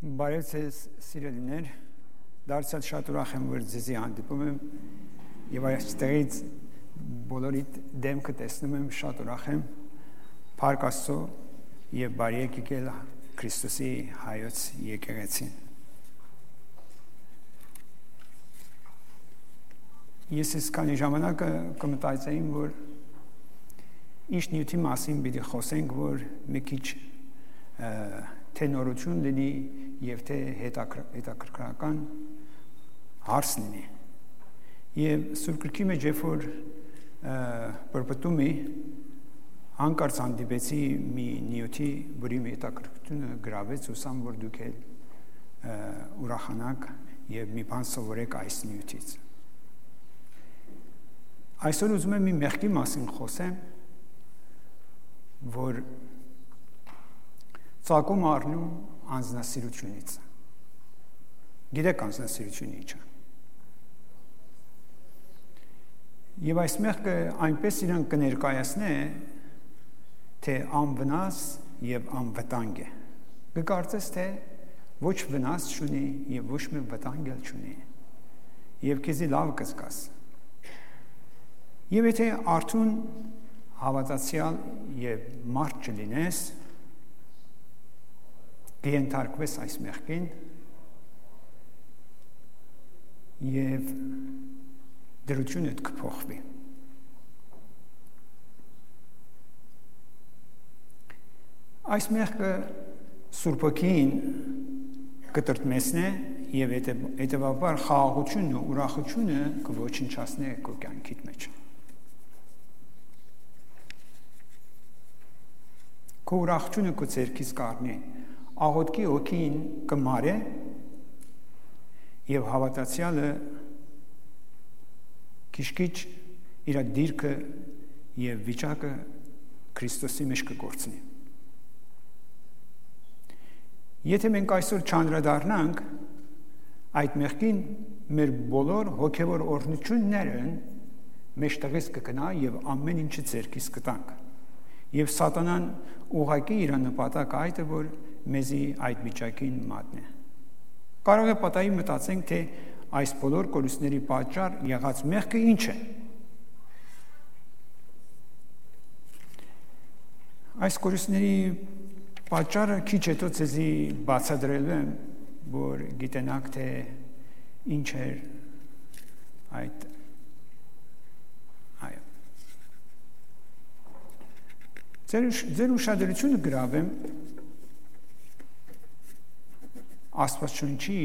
Բարև ձեզ սիրելիներ, դարձյալ շատ ուրախ եմ, որ ձեզի հանդիպում եմ եւ այստեղից բոլորիդ դեմքը տեսնում եմ, շատ ուրախ եմ, Փառք Աստծո եւ բարի եկել Քրիստոսի հայոց եկեղեցին։ Ես այսքանի ժամանակ կմտածեին, որ ինչ նյութի մասին պիտի խոսենք, որ մի քիչ թե նորություն լինի եւ թե հետաքրքրական հարց լինի։ Եվ Սուրբ Գրքի մեջ երբ որ բրբտում է հանկարծ հանդիպեցի մի նյութի, որի հետաքրքրությունը գրավեց, ուսամ որ դուք էլ ուրախանաք եւ մի բան սովորեք այս նյութից։ Այսօր ուզում եմ մի մեղքի մասին խոսեմ, որ ծագում առնում անձնասիրությունից։ Գիտեք անձնասիրությունը ինչ է։ Եվ այս մեղքը այնպես իրան կներկայացնե, թե անվնաս եւ անվտանգ է։ Կկարծես, թե ոչ վնաս չունի եւ ոչ մի վտանգ էլ չունի։ Եվ քեզի լավ կզգաս։ Եվ եթե արդուն հավատացյալ եւ մարդ չլինես, կենթարկվես այս մեղքին եւ դրությունդ կփոխվի։ Այս մեղքը Սուրբոքին կտրտմեսնե եւ հետեւաբար խաղաղությունն ու ուրախությունը կոչնչացնե քո կյանքիդ մեջ։ Քո ուրախությունը քո ցերքից կառնի, աղոթքի հոգին կմարե եւ հավատացյալը քիչ-քիչ իր դիրքը եւ վիճակը Քրիստոսի մեջ կգործնի։ Եթե մենք այսօր չանդրադառնանք այդ մեղքին, մեր բոլոր հոգեվոր օրհնություններն մեջտեղից կգնա եւ ամեն ինչը ցերքից կտանք։ Եվ սատանան ուղղակի իր նպատակը այդ է, որ մեզի այդ վիճակին մատնի։ Կարող է պատահի մտածենք, թե այս բոլոր կորուստների պատճառ եղած մեղքը ինչ է։ Այս կորուստների պատճառը քիչ հետո ցեզի բացատրելու եմ, որ գիտենաք, թե ինչ է այդ Ձեր ուշադրությունը գրավեմ Աստվածաշունչի,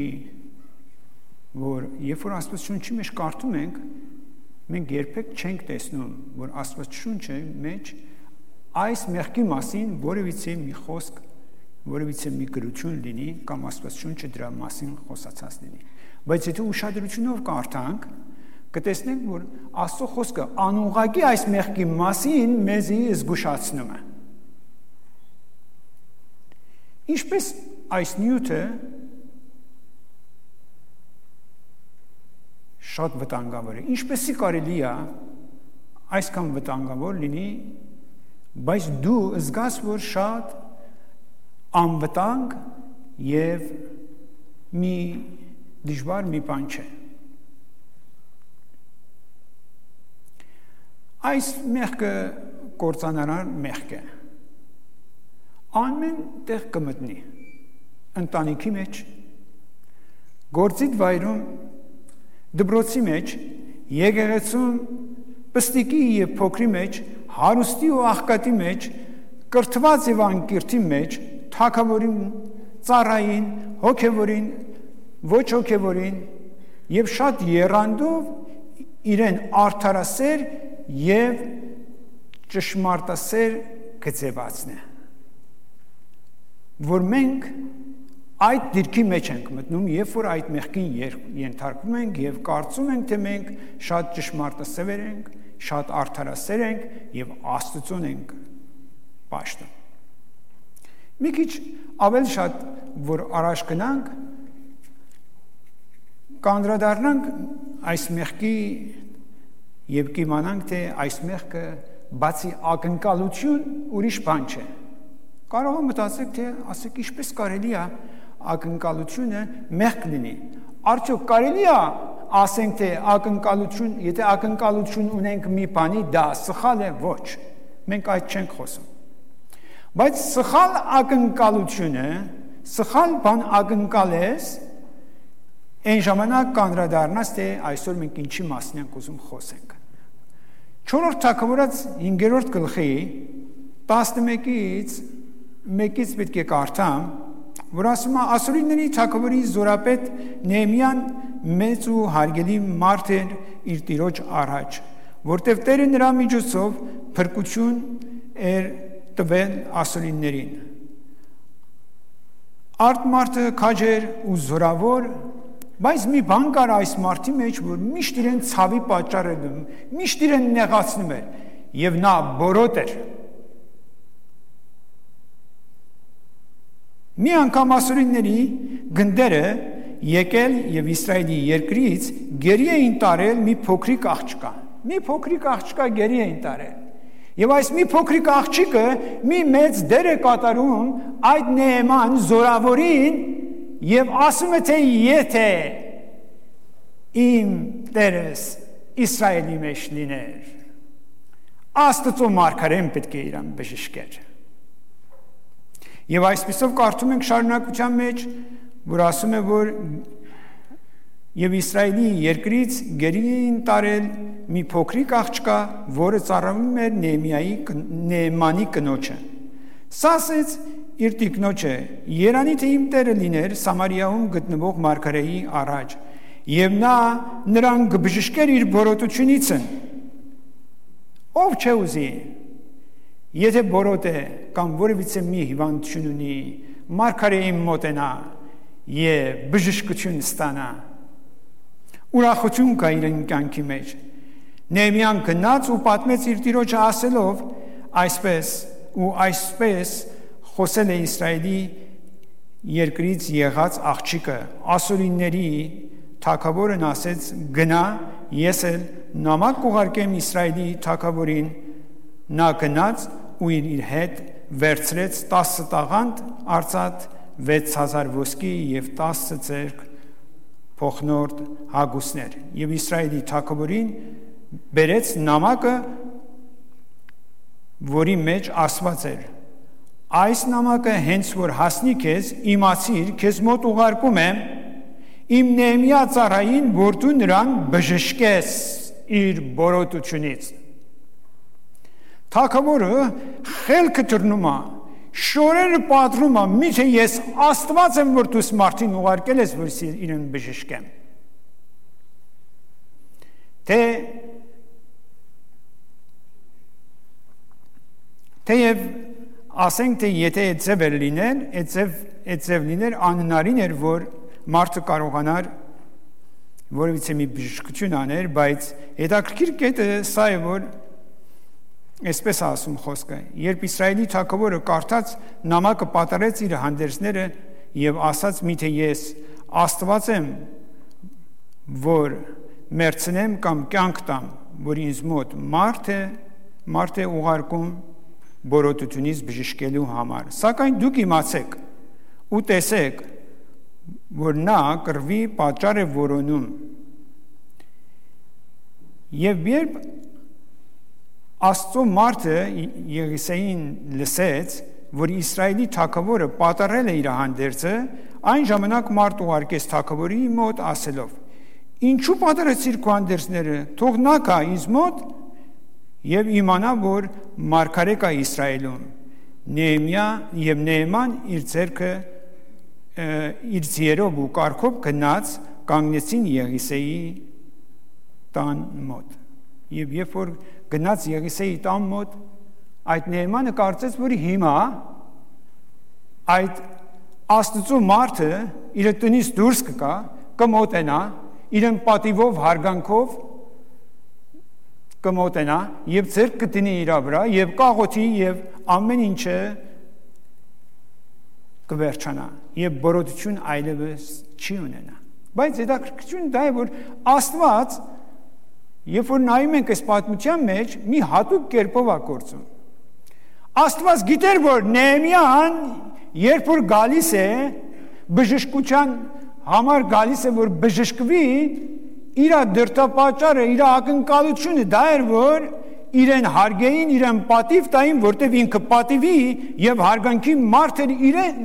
որ երբ որ Աստվածաշունչի մեջ կարդում ենք, մենք երբեք չենք տեսնում, որ Աստվածաշունչի մեջ այս մեղքի մասին որևիցե մի խոսք, որևիցե մի գրություն լինի կամ Աստվածաշունչը դրա մասին խոսացած լինի։ Բայց եթե ուշադրությունով կարդանք, կտեսնենք, որ Աստծո խոսքը անուղղակի այս մեղքի մասին մեզի զգուշացնում է։ Ինչպես այս նյութը շատ վտանգավոր է, ինչպեսի կարելի է այսքան վտանգավոր լինի, բայց դու զգաս, որ շատ անվտանգ եւ մի դժվար մի բան չէ։ Այս մեղքը կործանարար մեղք է։ Ամեն տեղ կմտնի, ընտանիքի մեջ, գործիդ վայրում, դպրոցի մեջ, եկեղեցում, պստիկի եւ փոքրի մեջ, հարուստի ու աղքատի մեջ, կրթված եւ անկիրթի մեջ, թագավորին, ծառային, հոգեվորին, ոչ հոգեվորին եւ շատ եռանդով իրեն արդարասեր եւ ճշմարտասեր գծեվածն է, որ մենք այդ դիրքի մեջ ենք մտնում, երբ որ այդ մեղքին ենթարկվում ենք եւ կարծում ենք, թե մենք շատ ճշմարտասեր ենք, շատ արդարասեր ենք եւ Աստծուն ենք պաշտում։ Մի քիչ ավելի շատ որ առաջ գնանք, կանդրադառնանք այս մեղքի եւ կիմանանք, թե այս մեղքը բացի ակնկալություն ուրիշ բան չէ։ Կարող է մտածեք, թե ասեք ինչպես կարելի է ակնկալությունը մեղք լինի։ Արդյոք կարելի է ասենք թե ակնկալություն, եթե ակնկալություն ունենք մի բանի, դա սխալ է, ոչ։ Մենք այդ չենք խոսում։ Բայց սխալ ակնկալությունը, սխալ բան ակնկալես, այն ժամանակ կանդրադառնաս, թե այսօր մենք ինչի մասին ենք ուզում խոսենք։ 4-րդ թագավորաց 5-րդ գլխի 11-ից 1-ից պետք է կարդամ, որ ասում է ասորիների թագավորի զորապետ Նեհեմիան մեծ ու հարգելի մարդ էր իր տիրոջ առաջ, որտև Տերը նրա միջոցով փրկություն էր տվել ասորիներին։ Արդ մարդը քաջ էր ու զորավոր, բայց մի բան կար այս մարդի մեջ, որ միշտ իրեն ցավի պատճառ էր դնում, միշտ իրեն նեղացնում էր, եւ նա բորոտ էր։ Մի անգամ ասորիների գնդերը եկել եւ Իսրայելի երկրից գերի էին տարել մի փոքրիկ աղջկա գերի էին տարել։ Եվ այս մի փոքրիկ աղջիկը մի մեծ դեր է կատարում այդ Նեհեման զորավորին եւ ասում է թե եթե իմ տերս Իսրայելի մեջ լիներ, Աստծո մարգարեն պետք է իրան բժշկեր։ Եվ այսպիսով կարդում ենք շարունակության մեջ, որ ասում է, որ եւ Իսրայելի երկրից գերի էին տարել մի փոքրիկ աղջկա, որը ծառայում էր Նեհեմանի կնոջը։ Սա ասեց իր տիկնոջը. «Երանի թե իմ տերը լիներ Սամարիայում գտնվող մարգարեի առաջ, եւ նա նրան կբժշկեր իր բորոտությունից»։ Ով չէ ուզի, եթե բորոտ է կամ որևիցե մի հիվանդություն ունի, մարգարեին մոտենա եւ բժշկություն ստանա, ուրախություն կա իր կյանքի մեջ։ Նեհեմիան գնաց ու պատմեց իր տիրոջը ասելով այսպես խոսել է Իսրայելի երկրից եղած աղջիկը։ Ասորիների թագավորն ասեց. գնա, ես էլ նամակ կուղարկեմ Իսրայելի թագավորին։ Նա գնաց ու իր հետ վերցրեց 10 տաղանդ արծաթ, 6000 ոսկի եւ 10 ձեռք փոխնորդ հագուստներ, եւ Իսրայելի թագավորին բերեց նամակը, որի մեջ ասված էր. այս նամակը հենց որ հասնի քեզ, իմացիր, քեզ մոտ ուղարկում եմ իմ Նեհեմիա ծառային, որ դու նրան բժշկես իր բորոտությունից։ Թագավորը խելքը դռնում է, շորերը պատռում է, միթե ես Աստված եմ, որ դու մարդին ուղարկել ես, որ իրեն բժշկեմ։ Թեև ասենք թե եթե այդ ձև էր լիներ, այդ ձև լիներ անհնարին էր, որ մարդը կարողանար որևիցե մի բժշկություն աներ, բայց հետաքրքիր կետը սա է, որ այսպես ասում խոսքը, երբ Իսրայելի թագավորը կարդաց նամակը պատառեց իր հանդերձները եւ ասաց միթե ես Աստված եմ, որ մերցնեմ կամ կյանք տամ, որ ինձ մոտ մարդ է ուղարկում բորոտությունից բժշկելու համար։ Սակայն դուք իմացեք ու տեսեք, որ նա կռվի պատճառ է որոնում։ Եվ երբ Աստծո մարդը Եղիսեին լսեց, որ Իսրայելի թագավորը պատառել է իր հանդերձը, այն ժամանակ մարդ ուղարկեց թագավորի մոտ ասելով. ինչու պատառեցիր քո հանդերձները, թող նա գա ինձ մոտ եւ իմանա, որ մարգարե կա Իսրայելում։ Նեհեման իր ձեռքը իր ձիերով ու կառքով գնաց, կանգնեցին Եղիսեի տան մոտ։ Եվ երբ որ գնաց Եղիսեի տան մոտ, այդ Նեհեմանը կարծեց, որ հիմա այդ Աստծո մարդը իր տնից դուրս կգա, կմոտենա, իրեն պատիվով, հարգանքով կմոտենա եւ ձեռք կդնի իր վրա եւ կաղոթի եւ ամեն ինչը կվերջանա եւ բորոտություն այլևս չի ունենա։ Բայց հետաքրքրությունը դա է, որ Աստված, երբ որ նայում ենք այս պատմության մեջ, մի հատուկ կերպով է գործում։ Աստված գիտեր, որ Նեհեմիան երբ որ գալիս է բժշկության համար գալիս է, որ բժշկվի, իր դրդապատճառը, իր ակնկալությունը դա էր, որ իրեն հարգեին, իրեն պատիվ տային, որտև ինքը պատիվի եւ հարգանքի մարդ էր իրեն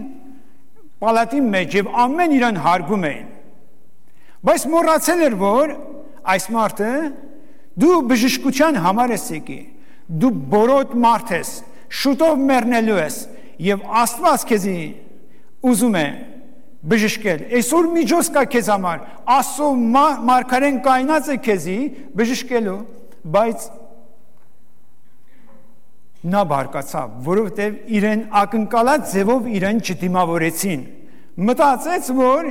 պալատի մեջ եւ ամեն իրեն հարգում էին։ Բայց մոռացել էր, որ այս մարդը դու բժշկության համար ես եկի, դու բորոտ մարդ ես, շուտով մեռնելու ես եւ Աստված քեզի ուզում է բժշկել։ Այսօր միջոց կա քեզ համար, Աստծո մարգարեն կայնած է քեզի բժշկելու, բայց նա բարկացավ, որովհետև իրեն ակնկալած ձևով իրեն չդիմավորեցին։ Մտածեց, որ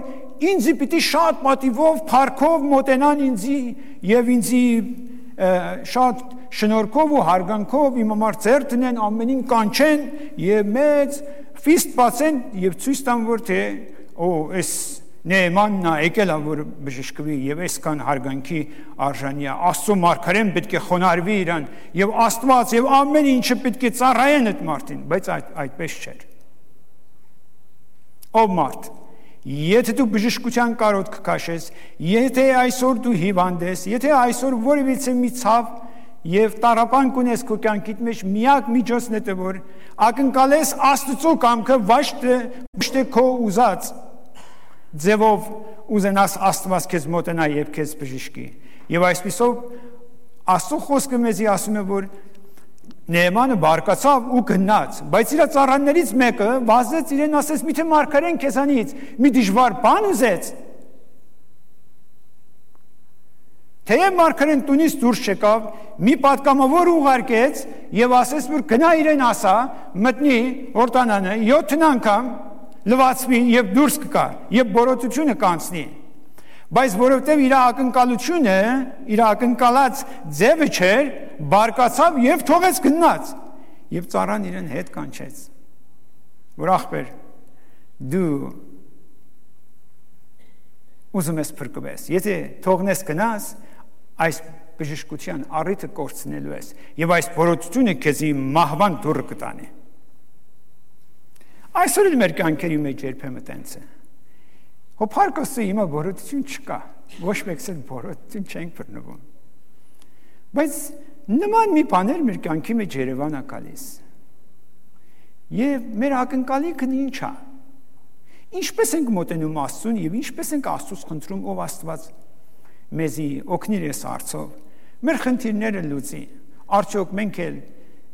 ինձի պիտի շատ պատիվով, փառքով մոտենան ինձի եւ ինձի շատ շնորհքով ու հարգանքով իմ համար ծեր տնեն, ամենին կանչեն եւ մեծ ֆիստ բացեն եւ ցույց տան, որ թե այս Նեմանն է եկել որ բժշկվի եւ այսքան հարգանքի արժանի է, Աստծո մարգարեն պետք է խոնարհվի իրան եւ Աստված եւ ամեն ինչը պետք է ծառայեն այդ մարդին, բայց այդպես չէր։ Ով մարդ, եթե դու բժշկության կարոտ կքաշես, եթե այսօր դու հիվանդ ես, եթե այսօր որևիցե մի ցավ եւ տառապան կունես քո կյանքիդ մեջ, միակ միջոցն է որ ակնկալես Աստծո կամքը, ոչ թե քո ուզած ձևով ուզենաս Աստված քեզ մոտենա եւ քեզ բժշկի։ Եվ այսպիսով Աստծո խոսքը մեզի ասում է, որ Նեեմանը բարկացավ ու գնաց, բայց իր ծառաներից մեկը վազեց իրեն ասեց՝ «Միթե մարգարեն քեզանից մի դժվար բան ուզեց»։ Թեև մարգարեն տունից դուրս չեկավ, մի պատգամավոր ուղարկեց եւ ասեց, որ գնա իրեն ասա, մտնի օրտանանը 7 անգամ լվացվի եւ դուրս կգա եւ բորոտությունը կանցնի, բայց որովհետեւ իր ակնկալությունը, իր ակնկալած ձևը չէր, բարկացավ եւ թողեց գնաց եւ ծառան իրեն հետ կանչեց, որ ախպեր դու ուզում ես փրկվես, եթե թողնես գնաս, այս բժշկության առիթը կորցնելու ես եւ այս բորոտությունը քեզի մահվան դուռը կտանի։ Այսօր էլ մեր կյանքերի մեջ երբեմն տենց է։ Հոփարկոսը հիմա բորոտություն չկա, ոչ մեկս էլ բորոտություն չենք բռնվում։ Բայց նման մի բաներ մեր կյանքի մեջ Երևան է գալիս։ Եվ մեր ակնկալիքն ինչ է։ Ինչպես ենք մոտենում Աստծուն եւ ինչպես ենք Աստծուց խնդրում, ով Աստված մեզի օգնիր այս հարցով, մեր խնդիրները լուծի։ Արդյոք մենք էլ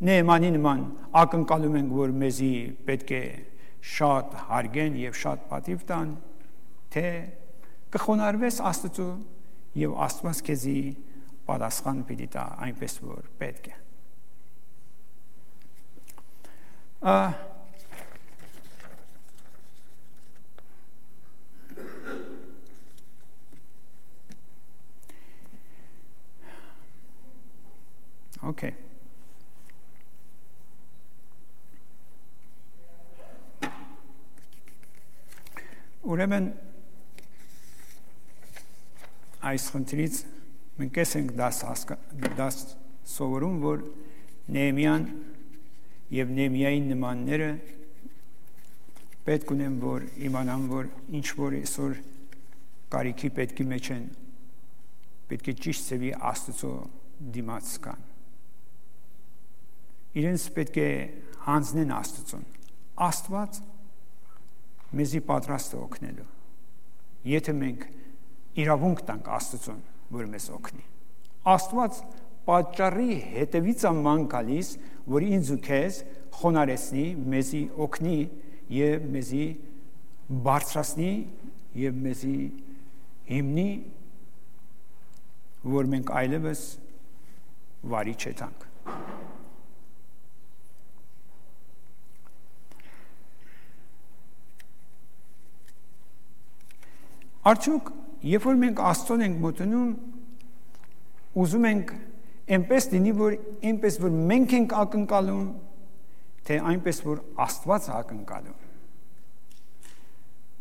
Նեեմանի նման ակնկալում ենք, որ մեզի պետք է շատ հարգեն եւ շատ պատիվ տան, թե կխոնարհվես Աստծո եւ Աստված քեզի պատասխան պիտի տա այնպես որ պետք է։ Okay. Ուրեմն այս խնդրից մենք ենք դաս սովորում, որ Նեեմիան եւ Նեեմիայի նմանները պետք ունեն, որ իմանան, որ ինչ որ այսօր կարիքի պետքի մեջ են, պետք է ճիշտ ծավի Աստծո դիմաց կան։ Իրենց պետք է հանձնեն Աստծուն։ Աստված մեզի պատրաստ է օգնելու։ Եթե մենք իրավունք տանք Աստծուն, որ մեզ օգնի։ Աստված պատճառի հետևից աման գալիս, որ ինձ ու քեզ խոնարհեցնի, մեզի օգնի եւ մեզի բարձրացնի եւ մեզի հիմնի, որ մենք այլևս վարի չետանք։ Արդյոք, երբ որ մենք Աստծուն ենք մոտենում, ուզում ենք այնպես լինի, որ այնպես որ մենք ենք ակնկալում, թե այնպես որ Աստված է ակնկալում։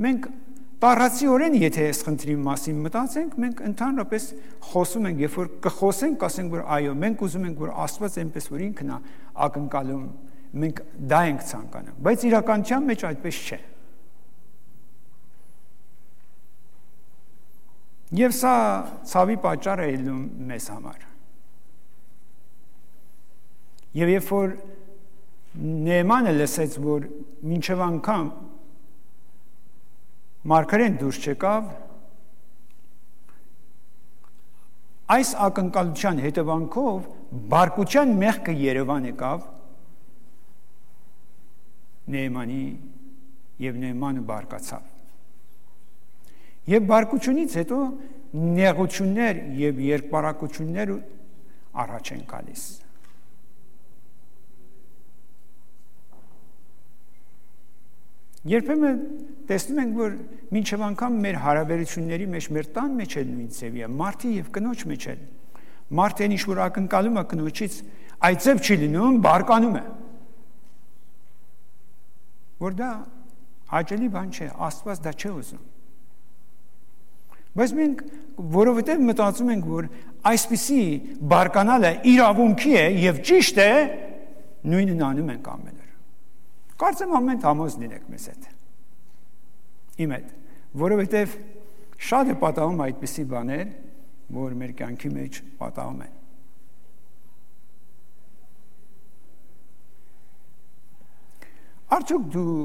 Մենք տառացիորեն, եթե այս խնդրի մասին մտածենք, մենք ընդհանրապես խոսում ենք, երբ որ կխոսենք, ասենք, որ այո, մենք ուզում ենք, որ Աստված այնպես որ ինքն է ակնկալում, մենք դա ենք ցանկանում, բայց իրականության մեջ այդպես չէ։ Եվ սա ցավի պատճառ է ելնում մեզ համար։ Եվ երբ որ Նեեմանը լսեց, որ մինչև անգամ մարգարեն դուրս չեկավ, այս ակնկալության հետևանքով բարկության մեղքը Երևան եկավ Նեեմանի եւ Նեեմանը բարկացավ։ Եվ բարկությունից հետո նեղություններ եւ երկպարակություններ առաջ են գալիս։ Երբեմն տեսնում ենք, որ մինչև անգամ մեր հարաբերությունների մեջ, մեր տան մեջ էլ նույն ձևի է, մարդի եւ կնոջ մեջ էլ։ Մարդը ինչ որ ակնկալում է կնոջից, այդ ձև չի լինում, բարկանում է։ Որ դա հաճելի բան չէ, Աստված դա չէ ուզում։ Բայց մենք որովհետև մտածում ենք, որ այսպիսի բարկանալը իրավունքի է եւ ճիշտ է, նույնն անում ենք ամեն օր։ Կարծեմ ամեն համոզ լինեք մեզ հետ։ Իմ հետ, որովհետև շատ է պատահում այդպիսի բաներ, որ մեր կյանքի մեջ պատահում են։ Արդյոք դու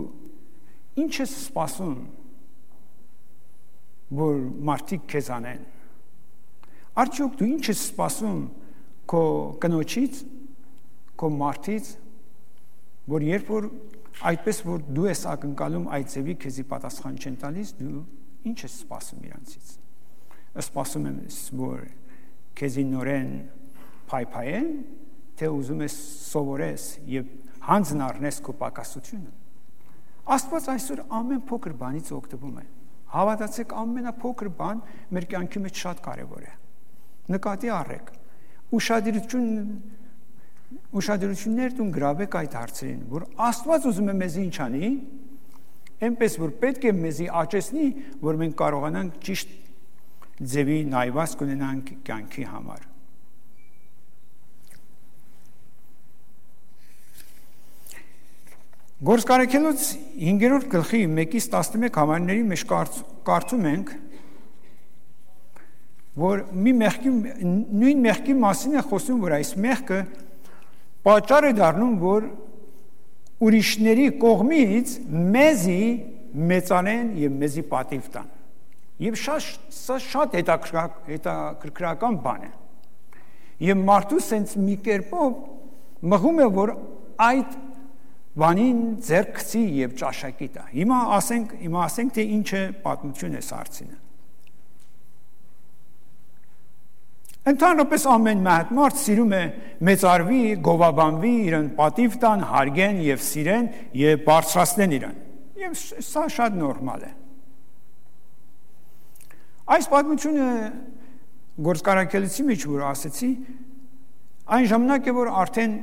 ինչ ես սպասում, որ մարդիկ քեզ անեն։ Արդյոք դու ինչ ես սպասում քո կնոջից, քո մարդից, որ երբ որ այդպես որ դու ես ակնկալում այդ ձևի քեզի պատասխան չեն տալիս, դու ինչ ես սպասում իրանցից։ Սպասում ես, որ քեզի նորեն փայփայեն, թե ուզում ես սովորես եւ հանձն առնես քո պակասությունը։ Աստված այսօր ամեն փոքր բանից օգտվում է։ Հավատացեք, ամենափոքր բան մեր կյանքի մեջ շատ կարևոր է։ Նկատի առեք։ Ուշադրություններ դուն գրավեք այդ հարցերին, որ Աստված ուզում է մեզ ինչ անի, այնպես որ պետք է մեզի աճեցնի, որ մենք կարողանանք ճիշտ ձևի նայված կունենանք կյանքի համար։ Գործկարեքելոց 5-րդ գլխի 1-ից 11 համարների մեջ կարդում ենք, որ նույն մեղքի մասին է խոսում, որ այս մեղքը պատճառ է դառնում, որ ուրիշների կողմից մեզի մեծանեն եւ մեզի պատիվ տան։ Եվ սա շատ հետաքրքրական բան է։ Եվ մարդու սենց մի կերպով մղում է, որ այդ բանին ձեռք գցի եւ ճաշակի տա։ Հիմա ասենք թե ինչ է պատմություն է սարցինը։ Ընդհանրապես ամեն մարդ սիրում է մեծարվի, գովաբանվի, իրեն պատիվ տան, հարգեն եւ սիրեն եւ բարձրացնեն իրեն։ Եվ սա շատ նորմալ է։ Այս պատմությունը գործկարակելիցի մեջ որ ասեցի, այն ժամանակ է որ արդեն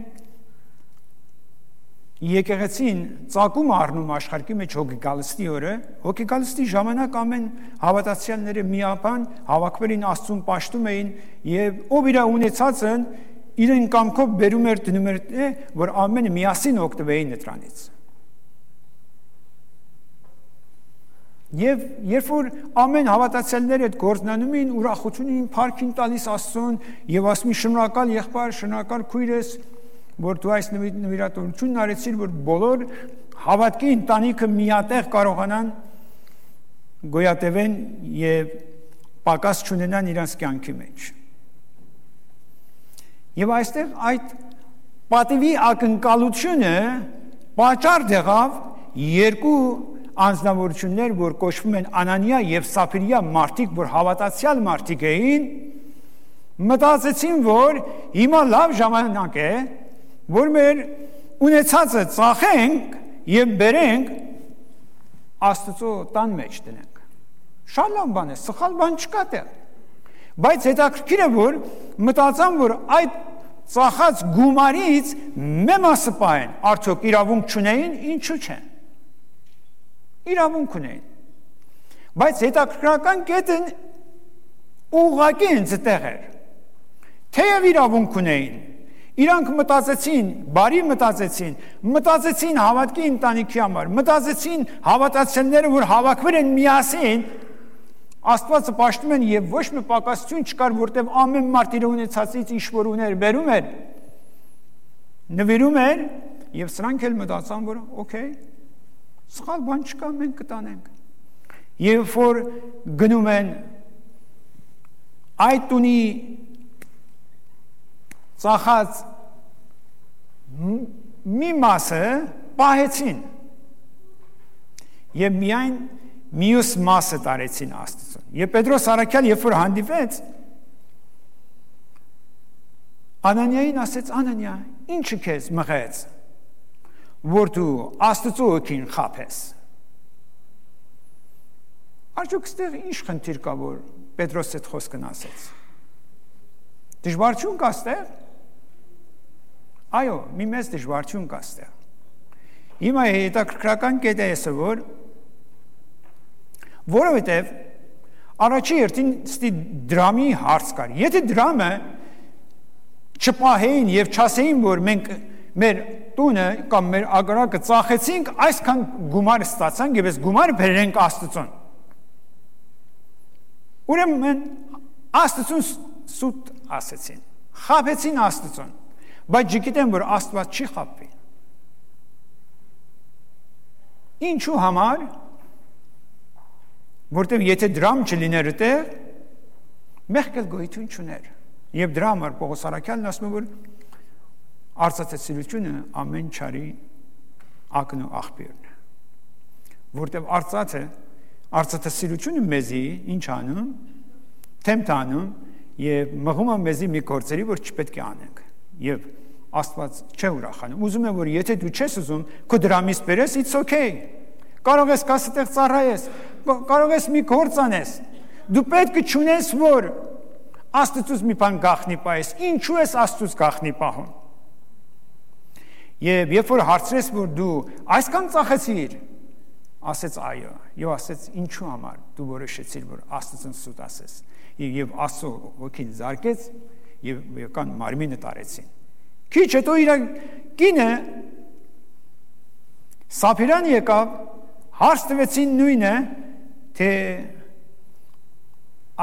եկեղեցին ծագում առնում աշխարհի մեջ հոգեգալստի օրը, հոգեգալստի ժամանակ ամեն հավատացյալները միապան հավաքվելին Աստծուն պաշտում էին եւ ով իր ունեցածն իրեն կամքով բերում էր դնում էր, որ ամենը միասին օգտվեին դրանից։ Եվ երբ որ ամեն հավատացյալները այդ գործնանում էին, ուրախությունին փառքին տալիս Աստծուն եւ ասում շնորհակալ եղբայր, շնորհակալ քույրես, որ դու այս նվիրատվությունն արեցիր, որ բոլոր հավատքի ընտանիքը միատեղ կարողանան գոյատևեն եւ պակաս չունենան իրենց կյանքի մեջ։ Եվ այստեղ այդ պատիվի ակնկալությունը պատճառ դեղավ երկու անձնավորություններ, որ կոչվում են Անանիա եւ Սափիրիա մարդիկ, որ հավատացյալ մարդիկ էին, մտածեցին, որ հիմա լավ ժամանակ է, որ մեր ունեցածը ծախենք եւ բերենք Աստծո տան մեջ դնենք։ Շատ լավ բան է, սխալ բան չկա դեռ։ Բայց հետաքրքիր է, որ մտածան, որ այդ ծախած գումարից մի մասը պահեն, արդյոք իրավունք չունեին, ինչու՞ չէ։ Իրավունք ունեին։ Բայց հետաքրքրական կետը ուղղակի ինձ տեղ էր։ Թեև իրավունք ունեին, իրանք մտածեցին, բարի մտածեցին հավատքի ընտանիքի համար, մտածեցին հավատացյալները, որ հավաքվել են միասին, Աստվածը պաշտում են եւ ոչ մի պակասություն չկար, որտեղ ամեն մարդ իր ունեցածից ինչ որ ուներ, բերում էր, նվիրում էր եւ սրանք էլ մտածան, որ օքեյ, սխալ բան չկա, մենք կտանենք։ Երբ որ գնում են այդ տունի ծախած մի մասը պահեցին եւ միայն մյուս մասը տարեցին Աստծուն։ Եվ Պետրոս առաքյալ երբ որ հանդիպեց, Անանիային ասեց. Անանիա, ինչը քեզ մղեց, որ դու Աստծո օգին խաբես։ Արդյոք ստեղ ինչ խնդիր կա, որ Պետրոս այդ խոսքն ասեց։ Դժվարություն կա ստեղ։ Այո, մի մեծ դժվարություն կա ստեղ։ Հիմա հետաքրքրական կետը է, որովհետև առաջի երթին ստի դրամի հարց կար։ Եթե դրամը չպահեին եւ չասեին, որ մենք մեր տունը կամ մեր ագարակը ծախեցինք, այսքան գումար ստացանք եւ այս գումարը բերենք Աստծուն։ Ուրեմն Աստծուն սուտ ասեցին, խաբեցին Աստծուն, բայց գիտեն, որ Աստված չի խաբվի։ Ինչու համար, որտեղ եթե դրամ չլիներ այդտեղ, մեղք էլ գոյություն չուներ։ Եվ դրա համար Պողոս առաքյալն ասում է, որ արծաթասիրությունը ամեն չարի ակն ու աղբյուրն է։ Որտեղ արծաթասիրությունը մեզի ինչ անում, թեմթ անում եւ մղում է մեզի մի գործերի, որ չպետք է անենք։ Եվ Աստված չէ ուրախանում։ Ուզում է, որ եթե դու չես ուզում, քո դրամից բերես, it's okay։ Կարող ես կասետեղ ծառայես, կարող ես մի գործ անես։ Դու պետք է չունես, որ Աստծուց մի բան գախնի պահես։ Ինչու ես Աստծուց գախնի պահում։ Եվ երբ որ հարցրես, որ դու այսքան ծախեցիր, ասեց այո, եւ ասեց ինչու համար դու որոշեցիր, որ Աստծուն սուտ ասես։ Եվ Աստծո ոգին զարկեց եւ եկան մարմինը տարեցին։ Քիչ հետո իր կինը Սափիրան եկավ, հարց տվեցին նույնը, թե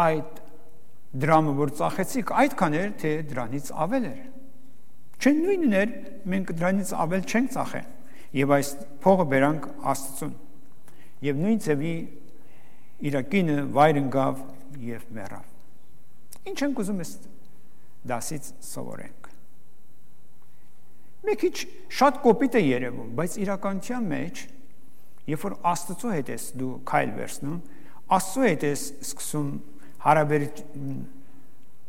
այդ դրամը, որ ծախեցիք, այդքան էր, թե դրանից ավել էր։ Չէ նույնն էր, մենք դրանից ավել չենք ծախել։ Եվ այս փողը բերանք Աստծուն։ Եվ նույն ձևի իր կինը վայր ընկավ եւ մեռավ։ Ինչ ենք ուզում ես դասից սովորենք։ Մի քիչ շատ կոպիտ է երևում, բայց իրականության մեջ, երբ որ Աստծո հետ ես դու քայլ վերցնում, Աստծո հետ ես սկսում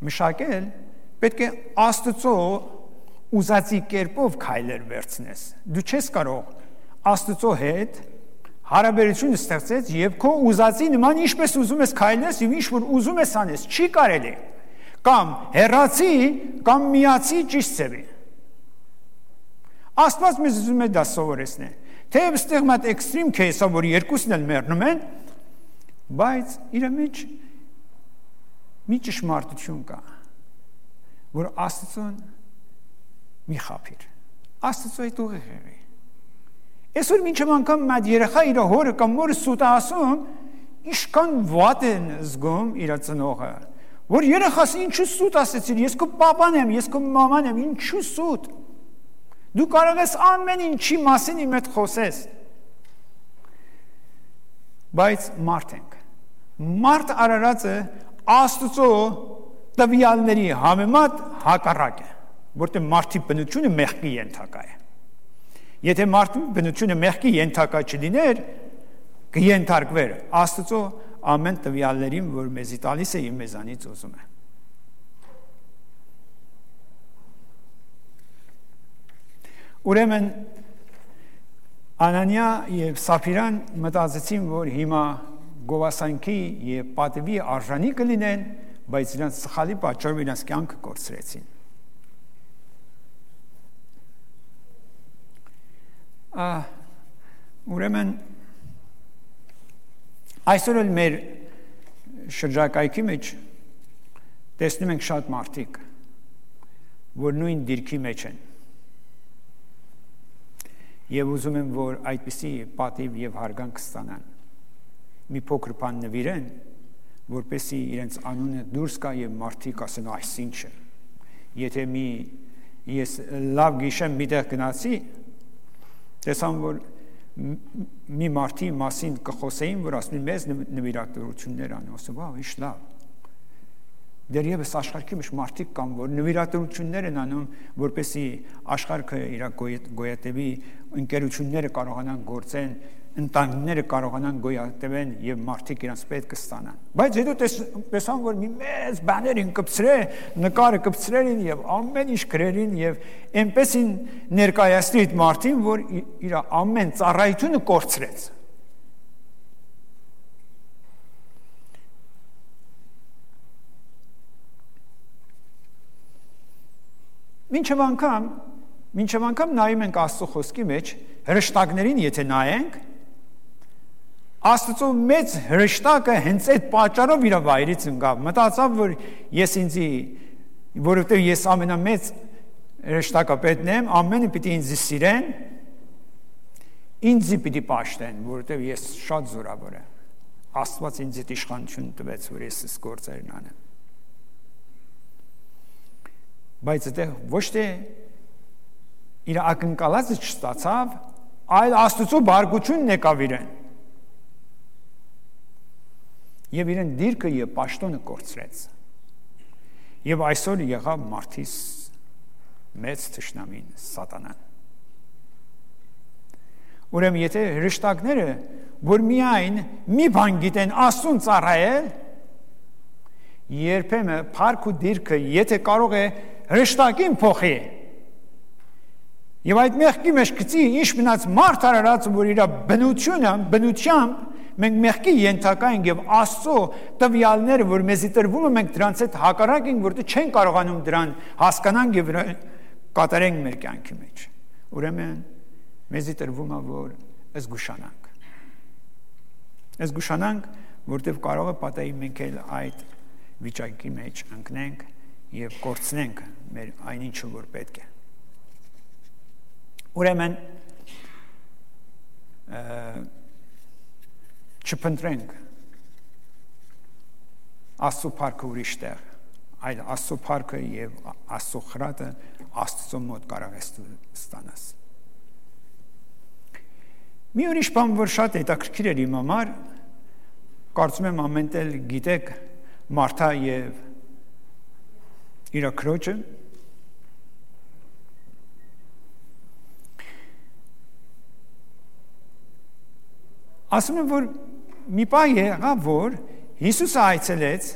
մշակել, պետք է Աստծո ուզածի կերպով քայլեր վերցնես։ Դու չես կարող Աստծո հետ հարաբերություն ստեղծել եւ քո ուզածի նման ինչպես ուզում ես քայլես եւ ինչ որ ուզում ես անես, չի կարելի։ Կամ հեռացի, կամ միացի ճիշտ ձևի։ Աստված մեզ ուզում է դա սովորեցնել։ Թեև ստեղ մատ էքստրիմ քեյսը, որ երկուսն էլ մեռնում են, բայց իր մեջ մի ճշմարտություն կա, որ Աստծուն մի խաբիր։ Աստծո այդ ուղիղ եղի։ Այսօր մինչև անգամ մատ երեխա իր հորը կամ մորը սուտ ասում, ինչքան վատ են զգում իր ծնողը, որ երեխաս ինչու սուտ ասեցիր, ես քո պապան եմ, ես քո մաման եմ, ինչու սուտ։ Դու կարող ես ամեն ինչի մասին իմ հետ խոսես։ Բայց մարդ ենք։ Մարդ արարածը Աստծո տվյալների համեմատ հակառակ է, որտեղ մարդի բնությունը մեղքի ենթակա է։ Եթե մարդի բնությունը մեղքի ենթակա չլիներ, կենթարկվեր Աստծո ամեն տվյալներին, որ մեզի տալիս է եւ մեզանից ուզում է։ Ուրեմն Անանիա եւ Սափիրան մտածեցին, որ հիմա գովասանքի եւ պատվի արժանի կլինեն, բայց իրանց սխալի պատճառով իրանց կյանքը կորցրեցին։ Ուրեմն այսօր էլ մեր շրջակայքի մեջ տեսնում ենք շատ մարդիկ, որ նույն դիրքի մեջ են եւ ուզում են, որ այդպիսի պատիվ եւ հարգանք ստանան։ Մի փոքր բան նվիրեն, որպեսզի իրենց անունը դուրս գա եւ մարդիկ ասեն այսինչ է։ Եթե ես լավ գիշեմ միտեղ գնացի, տեսամ որ մի մարդի մասին կխոսեին, որ ասում են մեզ նվիրատվություններ ան, ասում վա, ինչ լավ։ Դեռևս աշխարհի մեջ մարդիկ կան, որ նվիրատվություններ են անում, որպեսզի աշխարհը իր գոյատևի, ընկերությունները կարողանան գործեն, ընտանիքները կարողանան գոյատևեն եւ մարդիկ իրancs պետք կստանան։ Բայց հետո տեսան, որ մի մեծ բաներ են կպցրել, նկարը կպցրելին եւ ամեն ինչ գրերին եւ այնպեսին ներկայացրի այդ մարդին, որ իր ամեն ծառայությունը կորցրեց։ Մինչև անգամ նայում ենք Աստծո խոսքի մեջ, հրեշտակներին եթե նայենք, Աստծո մեծ հրեշտակը հենց այդ պատճառով իր վայրից ընկավ, մտածավ, որ ես ինձի, որովհետև ես ամենամեծ հրեշտակապետն եմ, ամենը պիտի ինձ սիրեն, ինձի պիտի պաշտեն, որովհետև ես շատ զորավոր եմ, Աստված ինձ այդ իշխանություն տվեց, որ ես այս գործերն անեմ։ Բայց այդտեղ ոչ թե իր ակնկալածը չստացավ, այլ Աստծո բարգությունն եկավ իրեն։ Եվ իրեն դիրքը եւ պաշտոնը կորցրեց։ Եվ այսօր եղավ մարդիս մեծ թշնամին սատանան։ Ուրեմն եթե հրեշտակները, որ միայն մի բան գիտեն Աստծուն ծառայել, երբեմն փառք ու դիրքը եթե կարող է հրեշտակին փոխի, եւ այդ մեղքի մեջ գցի ինչ մնաց մարդ արարած, որ իր բնությամբ մենք մեղքի ենթակա ենք եւ Աստծո տվյալները, որ մեզի տրվում են, մենք դրանց հետ հակառակ ենք, որտեղ չեն կարողանում դրան հասկանանք եւ կատարենք մեր կյանքի մեջ։ Ուրեմն մեզի տրվում է, որ զգուշանանք, որտեղ կարող է պատահի մենք էլ այդ վիճակի մեջ ընկնենք եւ կորցնենք մեր այնինչը, որ պետք է։ Ուրեմն չփնտրենք Աստծո փառքը ուրիշ տեղ, այլ Աստծո փառքը եւ Աստծո խրատը Աստծո մոտ կարող ես ստանաս։ Մի ուրիշ բան, որ շատ հետաքրքիր էր իմ համար, կարծում եմ ամեն տեղ գիտեք Մարթա եւ իր քրոջը, ասում եմ, որ մի բան եղավ, որ Հիսուսը այցելեց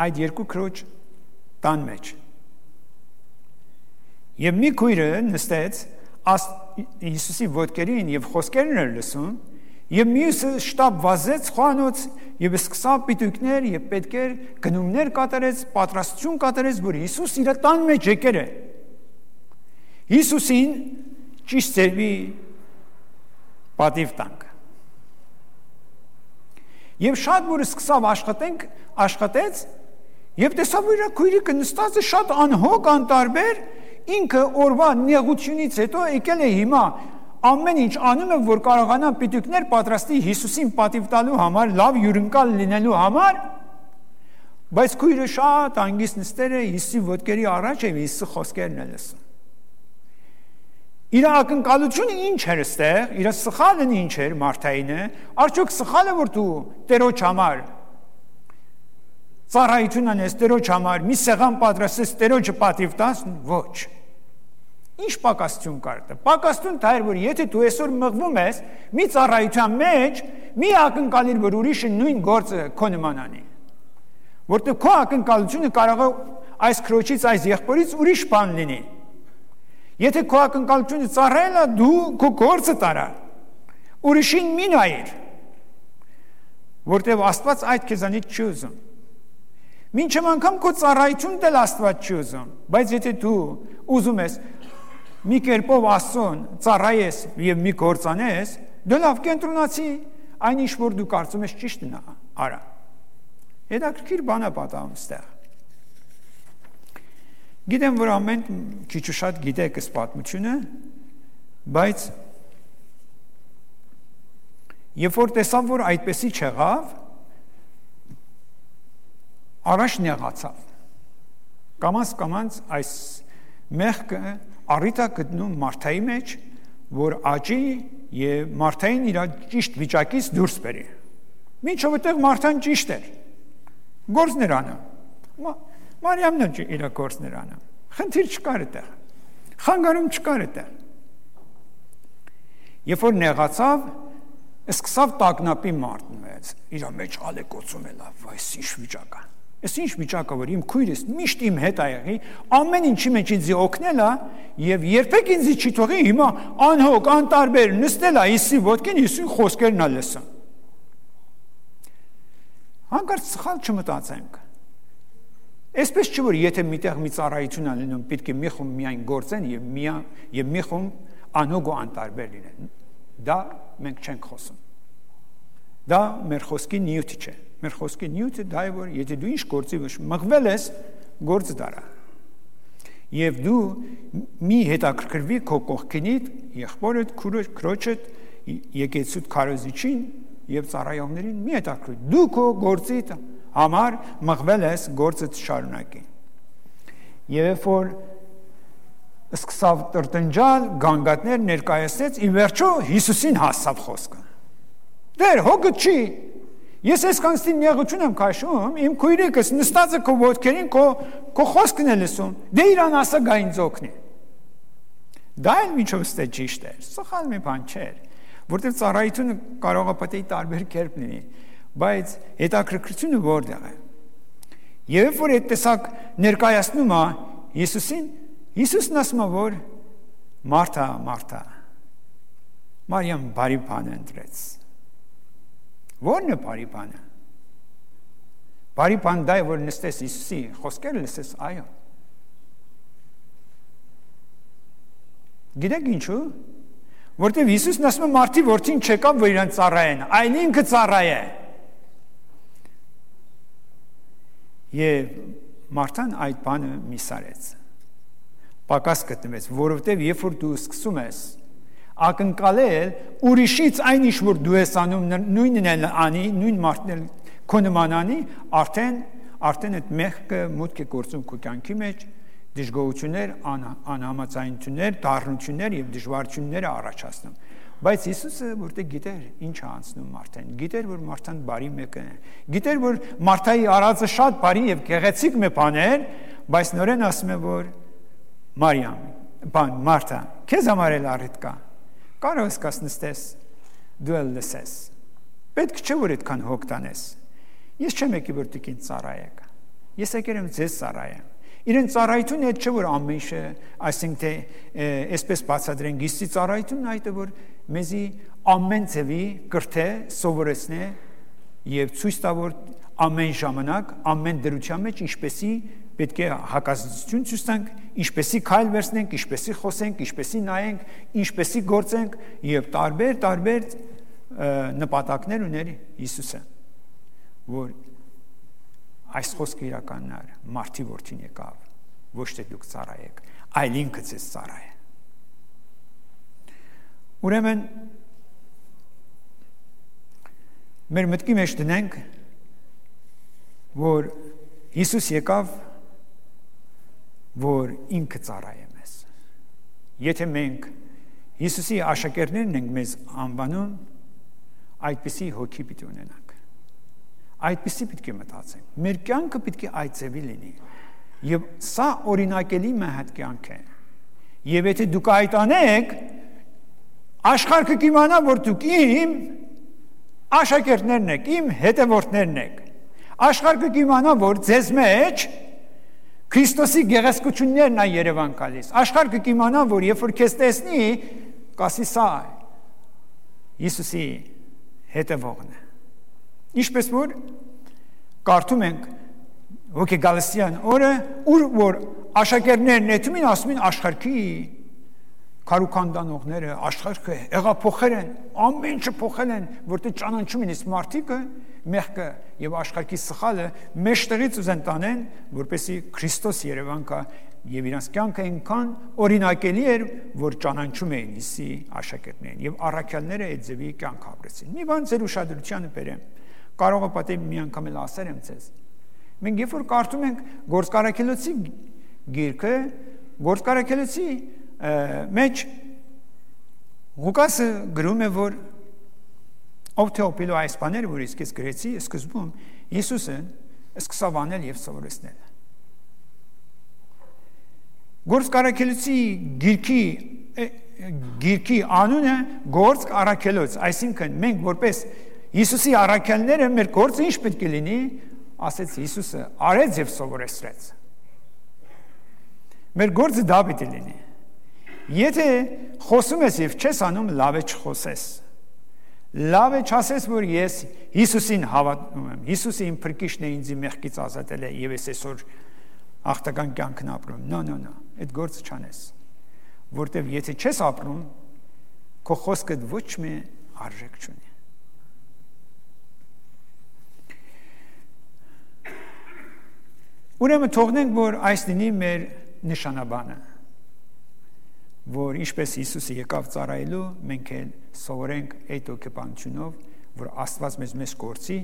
այդ երկու քրոջ տան մեջ։ Եվ մի քույրը նստեց Հիսուսի ոտքերին եւ խոսքերն էր լսում, եւ մյուսը շտապ վազեց խոհանոց եւ սկսավ պիտույքներ եւ պետքեր գնումներ կատարեց, պատրաստություն կատարեց, որ Հիսուս իր տան մեջ եկեր է։ Հիսուսին ճիշտ ծերվի պատիվ տանք։ Եվ շատ որ սկսավ աշխատեց, եւ տեսավ, որ իր քույրիկը նստած է շատ անհոգ, անտարբեր, ինքը օրվա նեղությունից հետո եկել է հիմա ամեն ինչ անում է, որ կարողանա պիտույքներ պատրաստի Հիսուսին պատիվ տալու համար, լավ հյուրընկալ լինելու համար, բայց քույրը շատ անգիստ նստել է Հիսուսի ոտքերի առաջ եւ Հիսուսի խոսքերն է լսում։ Իր ակնկալությունը ինչ էր ստեղ, իր սխալն ինչ էր Մարթայինը, արդյոք սխալը որ դու Տերոջ համար ծառայություն անես, Տերոջ համար մի սեղան պատրաստես, Տերոջը պատիվ տաս, ոչ։ Ինչ պակասություն կար դա։ Պակասություն դա էր, որ եթե դու այսօր մղվում ես մի ծառայության մեջ, մի ակնկալիր, որ ուրիշը նույն գործը քո նման անի։ Որտեղ քո ակնկալությունը կարող է այս քրոջից, այս եղբորից ուրիշ բան լինի։ Եթե քո ակնկալությունը ծառայել է, դու քո գործը տարա։ Ուրիշին մի նայիր, որտեղ Աստված այդ քեզանից չի ուզում։ Մինչև անգամ քո ծառայությունն էլ Աստված չի ուզում, բայց եթե դու ուզում ես մի կերպով Աստծուն ծառայես եւ մի գործ անես, դու լավ կենտրոնացի այն ինչ որ դու կարծում ես ճիշտն է, արա։ Հետաքրքիր բան է պատահում ստեղ։ Գիտեմ, որ ամեն քիչ ու շատ գիտեք այս պատմությունը, բայց Երբ որ տեսավ, որ այդպեսի չեղավ, առաջ նեղացավ։ Կամաց այս մեղքը առիթ է գտնում Մարթայի մեջ, որ աճի եւ Մարթային իր ճիշտ վիճակից դուրս բերի։ Մինչև այդտեղ Մարթան ճիշտ էր։ Գործներ անում։ Մարիամն էլ իր գործներ անում։ Խնդիր չկար այդտեղ։ Խանգարում չկար այդտեղ։ Երբ որ նեղացավ, սկսավ տագնապի մարտնվեց։ Իր մեջ ալեկոծում է լավ, այս ինչ վիճակ է։ Այս ինչ վիճակ է, որ իմ քույրս միշտ իմ հետ ա եղի, ամեն ինչի մեջ ինձ օգնել է եւ երբեք ինձ չի թողի, հիմա անհոգ, անտարբեր նստել է Հիսուսի ոտքին, Հիսուսի խոսքերն ա լսում։ Հանկարծ սխալ չմտածենք։ Այսպես չէ, որ եթե միտեղ մի ծառայություն ա լինում, պետք է մի խումբ միայն գործեն եւ մի խումբ անհոգ ու անտարբեր լինեն։ Դա մենք չենք խոսում։ Դա մեր խոսքի նյութը չէ։ Մեր խոսքի նյութը դա է, որ եթե դու ինչ գործի մղվել ես, գործը դարա։ Եվ դու մի հետաքրքրվի քո կողքինիդ, եղբորդ, քրոջդ, եկեցուդ քարոզիչին եւ ծառայողներին մի հետաքրքրվի։ Դու քո գործի համար մղվել ես, գործը շարունակի։ Եվ որ սկսավ տրտնջալ, գանգատներ ներկայացնեց, ի վերջո Հիսուսին հասավ խոսքը։ Դեր հոգը չի։ Ես այսքանստին նեղություն եմ քաշում, իմ քույրիկս նստած է քո ոտքերին, քո խոսքն է լսում։ Դե իրան ասա գա ինձ օգնի։ Դա էլ միջով ստե ճիշտ է։ Սխալ մի բան չէ, որտեղ ծառայությունը կարող է պետք է տարբեր կերպ լինի, բայց հետաքրքրությունը որտեղ է։ Եվ որ այդ տեսակ ներկայացնում է Հիսուսին, Հիսուսն ասում է, որ Մարթա, Մարթա, Մարիամ բարի բան ընտրեց։ Ո՞րն է բարի բանը։ Բարի բան դա է, որ նստես Հիսուսի խոսքերը լսես, այո։ Գիտեք ինչու։ Որտեվ Հիսուսն ասում է մարդի որդին չեկավ, որ իրան ծառայեն, այլ ինքը ծառայե։ Եվ Մարթան այդ բանը միսարեց։ Պակաս գտնվեց, որովհետև երբ որ դու սկսում ես ակնկալել ուրիշից այն ինչ որ դու ես անում, նույնն էլ անի, նույն մարդն էլ քո նման անի, արդեն այդ մեղքը մուտք է գործում քո կյանքի մեջ, դժգոհություններ, անհամաձայնություններ, դառնություններ եւ դժվարություններ առաջացնում։ Բայց Հիսուսը որտեղ գիտեր ինչ է անցնում Մարթան, գիտեր որ Մարթան բարի մեկն է, գիտեր որ Մարթայի արածը շատ բարի եւ գեղեցիկ մի բան էր, բայց նորեն ասում է որ Մարիամ, Մարթա, քեզ համար էլ առիթ կա։ Կարող ես նստես, դու էլ լսես։ Պետք չէ որ այդքան հոգ տանես։ Ես չեմ եկի որ դուք ինձ ծառայեք։ Ես եկել եմ ձեզ ծառայեմ։ Իրեն ծառայությունը այդ չէ որ ամեն ինչը, այսինքն թե այսպես բացատրենք, Հիսուսի ծառայությունն այդ է որ մեզի ամեն ձևի կրթե սովորեցնե եւ ցույց տա որ ամեն ժամանակ, ամեն դրության մեջ ինչպեսի պետք է հակազդեցություն ցույց տանք, ինչպեսի քայլ վերցնենք, ինչպեսի խոսենք, ինչպեսի նայենք, ինչպեսի գործենք եւ տարբեր նպատակներ ուներ Հիսուսը, որ այս խոսքը իրականն էր, մարդի որդին եկավ, ոչ թե դուք ծառայեք, այլ ինքը ձեզ ծառայե։ Ուրեմն մեր մտքի մեջ դնենք, որ Հիսուս եկավ, որ ինքը ծառայե մեզ։ Եթե մենք Հիսուսի աշակերտներն ենք մեզ անվանում, այդպիսի հոգի պիտի ունենանք։ Այդպիսի պետք է մտածենք։ Մեր կյանքը պետք է այդ ձևի լինի։ Եվ սա օրինակելի մեհատ կյանք է։ Եվ եթե դուք այդ անեք, աշխարհը կիմանա, որ դուք իմ աշակերտներն եք, իմ հետևորդներն եք։ Աշխարհը կիմանա, որ ձեզ մեջ Քրիստոսի գեղեցկություններն է Երևան գալիս։ Աշխարհը կիմանա, որ երբ որ քեզ տեսնի, կասի սա Հիսուսի հետևողն է։ Ինչպես որ կարդում ենք Հոգեգալստյան օրը, որ աշակերտներն նետում են, ասում են աշխարհի քարուքանդանողները, աշխարհը հեղափոխել են, ամեն ինչը փոխել են, որտեղ ճանաչում են իսկ մարդիկը մեղքը եւ աշխարհի սխալը մեջտեղից ուզեն տանեն, որպեսի Քրիստոս Երևան կա եւ իրանց կյանքը այնքան օրինակելի էր, որ ճանաչում էին Հիսուսի աշակերտներին եւ առաքյալները այդ ձևի կյանք ապրեցին։ Մի բան ձեր ուշադրությանը բերեմ։ Կարող է պատահի մի անգամ էլ ասել եմ ձեզ։ Մենք երբ որ կարդում ենք Գործարքելոցի գիրքը, Գործարքելոցի մեջ Ղուկասը գրում է, որ ով թե օպիլո այս բաները, որ իսկ ես գրեցի, սկզբում Հիսուսը սկսավ անել եւ սովորեցնել։ Գործարքելոցի գիրքի անունը Գործ առաքելոց, այսինքն մենք որպես Հիսուսի առաքյալները մեր գործը ինչ պետք է լինի, ասեց Հիսուսը, արեց եւ սովորեցրեց։ Մեր գործը դա պետք է լինի։ Եթե խոսում ես եւ չես անում, լավ է չխոսես։ Լավ է չասես, որ ես Հիսուսին հավատում եմ։ Հիսուսը իմ փրկիչն է, ինձ մեղքից ազատել է եւ ես այսօր աղտական կյանքն ապրում։ No, այդ գործը չանես։ Որտեւ եթե չես ապրում, քո խոսքդ ոչ մի արժեք չունի։ Ուրեմն թողնենք, որ այս լինի մեր նշանաբանը, որ ինչպես Հիսուսը եկավ ծառայելու, մենք էլ սովորենք այդ հոգեբանությունով, որ Աստված մեզ կորցի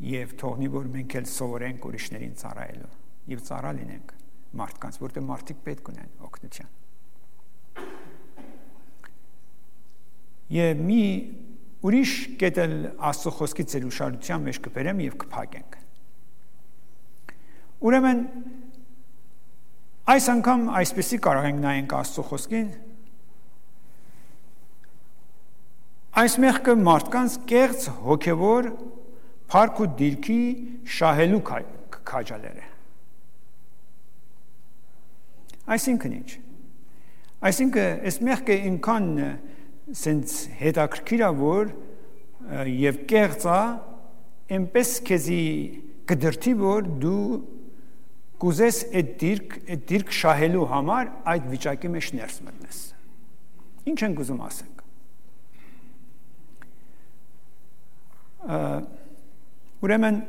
եւ թողնի, որ մենք էլ սովորենք ուրիշներին ծառայելու եւ ծառա լինենք մարդկանց, որտեղ մարդիկ պետք ունեն օգնություն։ Եվ մի ուրիշ կետ էլ Աստծո խոսքի ծեր ուշադրության մեջ կբերեմ եւ կփակենք։ Ուրեմն այս անգամ այսպեսի կարող ենք նայենք Աստծո խոսքին, այս մեղքը մարդկանց կեղծ հոգևոր փառք ու դիրքի շահելու քաջալեր է։ Այսինքն ինչ։ Այսինքն այս մեղքը ինքան սենց հետաքրքիր է, որ եւ կեղծ է, այնպես քեզի կդրթի, որ դու կուզես այդ դիրք շահելու համար այդ վիճակի մեջ ներս մտնես։ Ինչ ենք ուզում ասենք։ Ուրեմն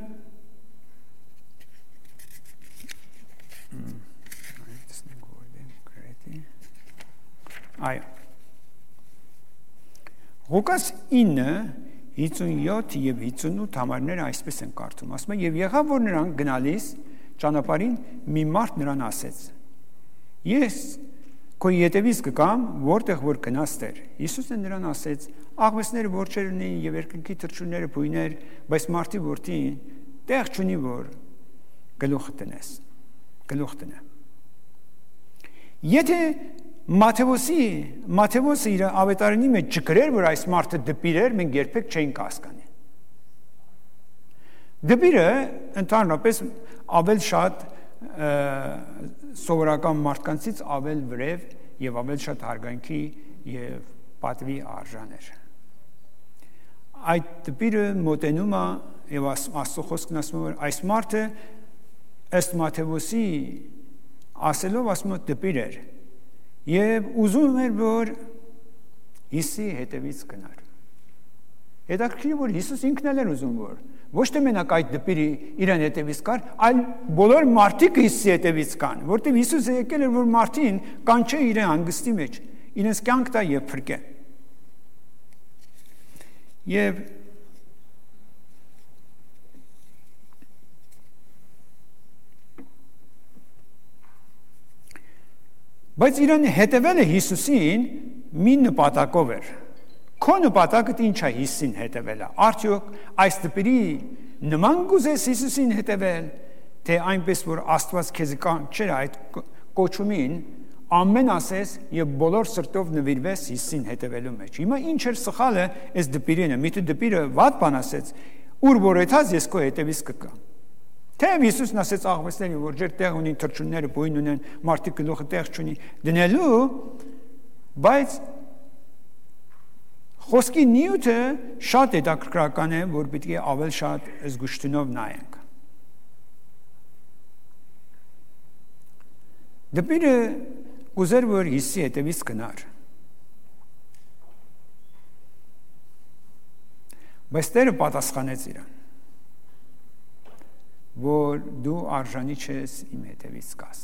Ղուկաս 9:57 եւ 58 համարները այսպես են կարդում, ասում է, եւ եղավ, որ նրանք գնալիս ճանապարհին մի մարդ նրան ասեց. Ես քո ետևից կգամ, որտեղ որ գնաս Տեր։ Հիսուսն նրան ասեց. աղվեսները որջեր ունեն եւ երկնքի թռչունները բույներ, բայց մարդի որդին տեղ չունի, որ գլուխ տնե։ Եթե Մատթեոսը իր ավետարանի մեջ չգրեր, որ այս մարդը դպիր էր, մենք երբեք չէինք հասկանի։ Դպիրը ընդհանրապես ավել շատ սովորական մարդկանցից ավել վրև եւ ավել շատ հարգանքի եւ պատվի արժան էր։ Այդ դպիրը մոտենում է եւ Աստծո խոսքն ասում է, որ այս մարդը ըստ Մատթեոսի ասելով ասում է դպիր էր եւ ուզում էր, որ Հիսուսի հետևից գնար։ Հետաքրքիր է, որ Հիսուս ինքն էլ էր ուզում, որ ոչ թե մենակ այդ դպիրը իրեն հետևից կար, այլ բոլոր մարդիկ Հիսուսի հետևից կան, որտեղ Հիսուսը եկել էր, որ մարդին կանչե իրեն հանգստի մեջ, իրենց կյանք տա եւ փրկե։ Եվ բայց իրեն հետևելը Հիսուսին մի նպատակով էր։ Քո նպատակը ինչ է Հիսուսին հետևելը։ Արդյոք այս դպիրի նման գուզես Հիսուսին հետևել, թե այնպես որ Աստված քեզ կանչեր այդ կոչումին, ամեն ասես եւ բոլոր սրտով նվիրվես Հիսուսին հետևելու մեջ։ Հիմա ինչ էր սխալը այս դպիրինը։ Միթե դպիրը վատ բան ասեց, ուր որ եթաց ես քո հետևից կգամ։ Թեև Հիսուսն ասեց աղվեսների, որ ջեր տեղ ունին, թռչունները բույն ունեն, մարդիկ գլուխը տեղ չունի դնելու, բայց խոսքի նյութը շատ հետաքրքրական է, որ պետք է ավել շատ զգուշտունով նայենք։ Դպիրը ուզեր, որ Հիսուսի հետևից գնար։ Բայց Տերը պատասխանեց իրան, որ դու արժանի չես իմ հետևից գաս։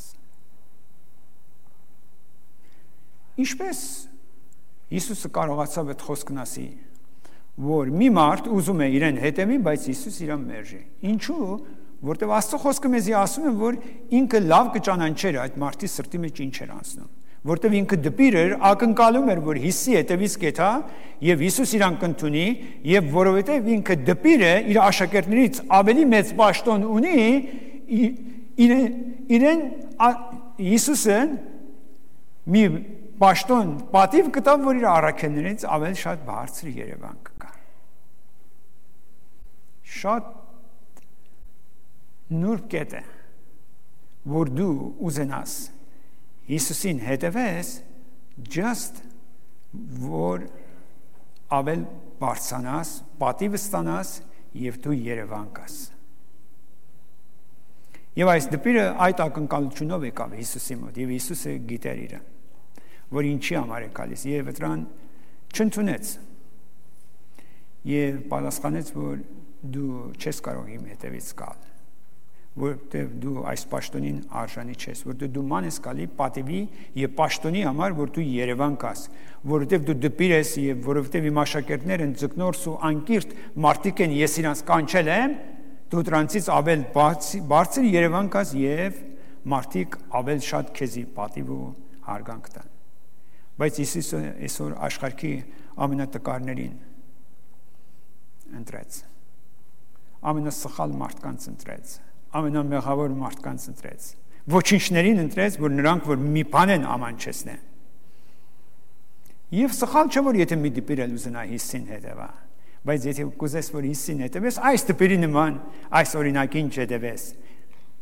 Ինչպես Հիսուսը կարողացավ այդ խոսքն ասի, որ մի մարդ ուզում է իրեն հետևի, բայց Հիսուս իրան մերժի։ Ինչու՞, որտեղ Աստծո խոսքը մեզի ասում է, որ ինքը լավ կճանաչեր այդ մարդի սրտի մեջ ինչ էր անցնում, որտեղ ինքը դպիր էր, ակնկալում էր, որ Հիսուսի հետևից կեթա, եւ Հիսուս իրան կընդունի, եւ որովհետեւ ինքը դպիր է, իր աշակերտներից ավելի մեծ պաշտոն ունի, իրեն Հիսուսը մի պաշտոն պատիվ կտավ, որ իր առաքելներից ավելի շատ բարձր երևան կգա։ Շատ նուրբ կետ է, որ դու ուզենաս Հիսուսին հետևես, just որ ավել բարձրանաս, պատիվ ստանաս եւ դու երևան կաս։ Եվ այս դպիրը այդ ակնկալությունով եկավ Հիսուսի մոտ, եւ Հիսուսը գիտեր իրեն, որ ինչի համար է գալիս, եւ դրան չընդունեց։ Եվ պատասխանեց, որ դու չես կարող իմ հետևից գալ, որտեղ դու այս պաշտոնին արժանի չես, որտեղ դու ման ես գալի պատիվի եւ պաշտոնի համար, որ դու Երևան կաս, որովհետեւ դու դպիր ես եւ որովհետեւ իմ աշակերտներն են ձկնորս ու անկիրթ մարդիկ են, ես իրանց կանչել եմ, դու դրանցից ավել բարձր Երևան կաս եւ մարդիկ ավել շատ քեզի պատիվ ու հարգանք տան։ Բայց Հիսուսը այսօր աշխարհի ամենատկարներին ընտրեց, ամենասխալ մարդկանց ընտրեց, ամենամեղավոր մարդկանց ընտրեց, ոչինչներին ընտրեց, որ նրանք որ մի բան են ամանչեցնեն։ Եվ սխալ չէ, որ եթե մի դպիր էլ ուզենա Հիսուսին հետևա, բայց եթե կուզես, որ Հիսուսին հետևես, այս դպիրի նման, այս օրինակին չհետևես,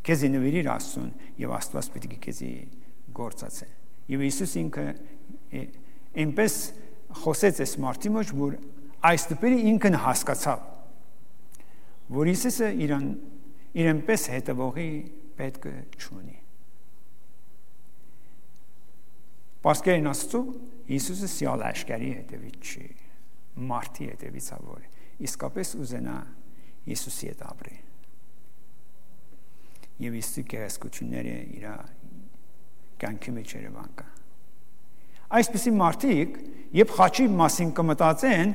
քեզի նվիրիր Աստծուն եւ Աստված պետք է քեզի գործածի։ Եվ Հիսուս ինքը այնպես խոսեց այս մարդի մեջ, որ այս դպիրը ինքն հասկացավ, որ Հիսուսը իրենպես հետևողի պետք չունի։ Պարսկերեն Աստծո Հիսուսը սիալ աշկարի հետևից չի, մարդի հետևից ավոր է, իսկապես ուզենա Հիսուսի հետ ապրի։ Եվ Հիսուսի գեղեցկությունները իր կյանքի մեջ երևան կա։ Այսպիսի մարդիկ, երբ խաչի մասին կմտածեն,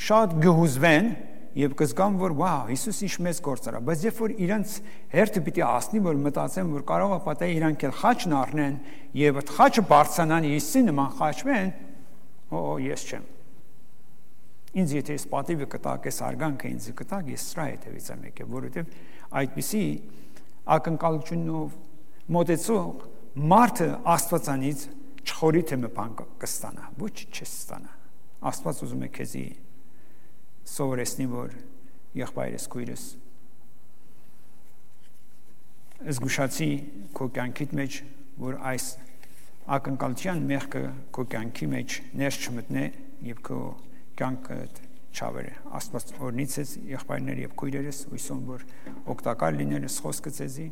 շատ գհուզվեն եւ կզգան, որ վау, Հիսուս ինչ մեծ գործ արա, բայց երբ որ իրանց հերթը պիտի ասնի, որ մտածեն, որ կարող է պատահի իրանք էլ խաչն առնեն եւ այդ խաչը բարձրանան Հիսուսի նման խաչվեն, ես չեմ։ Ինձ եթե ես պատիվը կտակ, ես արգանքը ինձ կտակ, ես սրա հետևից եմ եկել, որովհետեւ այդպիսի ակնկալությունով մոտեցող մարդը Աստվածանից չխորի թե մի բան կստանա, ոչ չես ստանա։ Աստված ուզում է քեզի սովորեցնի, որ եղբայրս քույրս զգուշացի քո կյանքիդ մեջ, որ այս ակնկալության մեղքը քո կյանքի մեջ ներս չմտնե եւ քո կյանքը չավերը։ Աստված օրհնիցես եղբայրներ եւ քույրերս, հույսում որ օգտակար լինելս խոսքը ցեզի